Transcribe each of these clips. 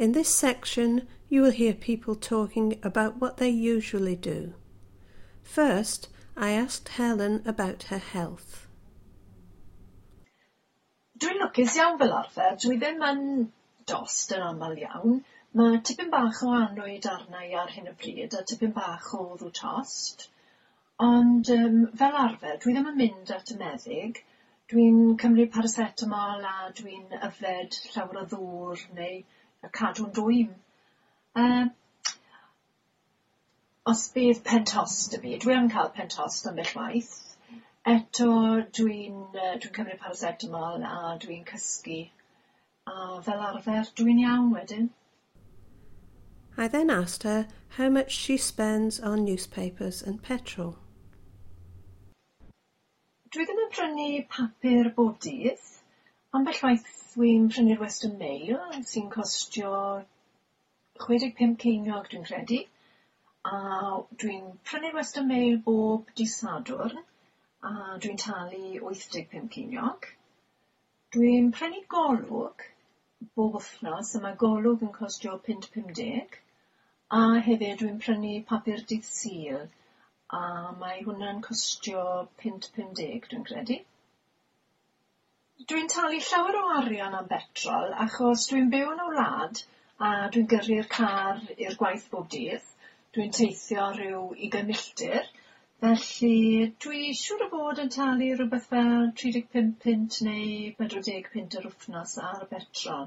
In this section, you will hear people talking about what they usually do. First, I asked Helen about her health. Dwi'n lwcus iawn fel arfer, dwi ddim yn dost yn aml iawn. Mae tipyn bach o annwyd arna i ar hyn o bryd a tipyn bach o wddw tost. Ond fel arfer dwi ddim yn mynd at y meddyg. Dwi'n cymryd paracetamol a dwi'n yfed llawer o ddŵr neu cadw'n dwym. Os bydd pen tost 'da fi, dwi yn cael pen tost ambell waith. Eto dwi'n cymryd paracetamol a dwi'n cysgu a fel arfer dwi'n iawn wedyn. I then asked her how much she spends on newspapers and petrol. Dwi ddim yn prynu papur bob dydd. Ambell waith dwi'n prynu'r Western Mail sy'n costio 65 ceiniog dwi'n credu. A dwi'n prynu'r Western Mail bob dydd Sadwrn a dwi'n talu 85 ceiniog. Dwi'n prynu Golwg bob wythnos a mae Golwg yn costio £5.50 a hefyd dwi'n prynu papur dydd Sul a mae hwnna'n costio £5.50 dwi'n credu. Dwi'n talu llawer o arian am betrol achos dwi'n byw yn y wlad a dwi'n gyrru'r car i'r gwaith bob dydd. Dwi'n teithio rhyw 20 milltir, felly dwi siŵr o fod yn talu rhywbeth fel 35 punt neu 40 punt yr wythnos ar betrol.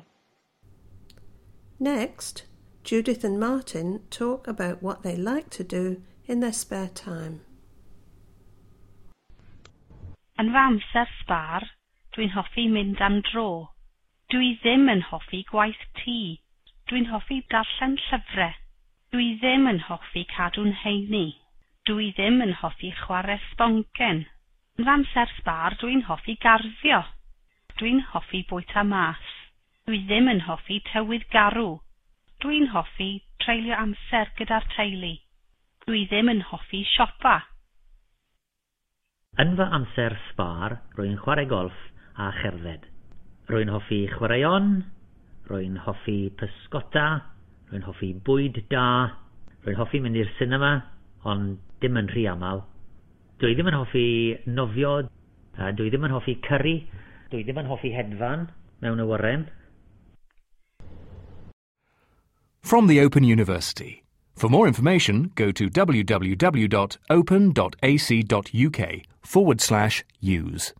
Next, Judith and Martin talk about what they like to do in their spare time. Yn fy amser sbâr, dwi'n hoffi mynd am dro. Dwi ddim yn hoffi gwaith tŷ. Dwi'n hoffi darllen llyfrau. Dwi ddim yn hoffi cadw'n heini. Dwi ddim yn hoffi chwarae sboncen. Yn fy amser sbâr, dwi'n hoffi garddio. Dwi'n hoffi bwyta mas. Dwi ddim yn hoffi tywydd garw. Dwi'n hoffi treulio amser gyda'r teulu. Dwi ddim yn hoffi siopa. Yn fy amser sbâr, rwy'n chwarae golff a cherdded. Rwy'n hoffi chwaraeon, rwy'n hoffi pysgota, rwy'n hoffi bwyd da, rwy'n hoffi mynd i'r sinema, ond dim yn rhy aml. Dwi ddim yn hoffi nofio, dwi ddim yn hoffi curry, dwi ddim yn hoffi hedfan mewn awyren. From the Open University. For more information, go to www.open.ac.uk/use.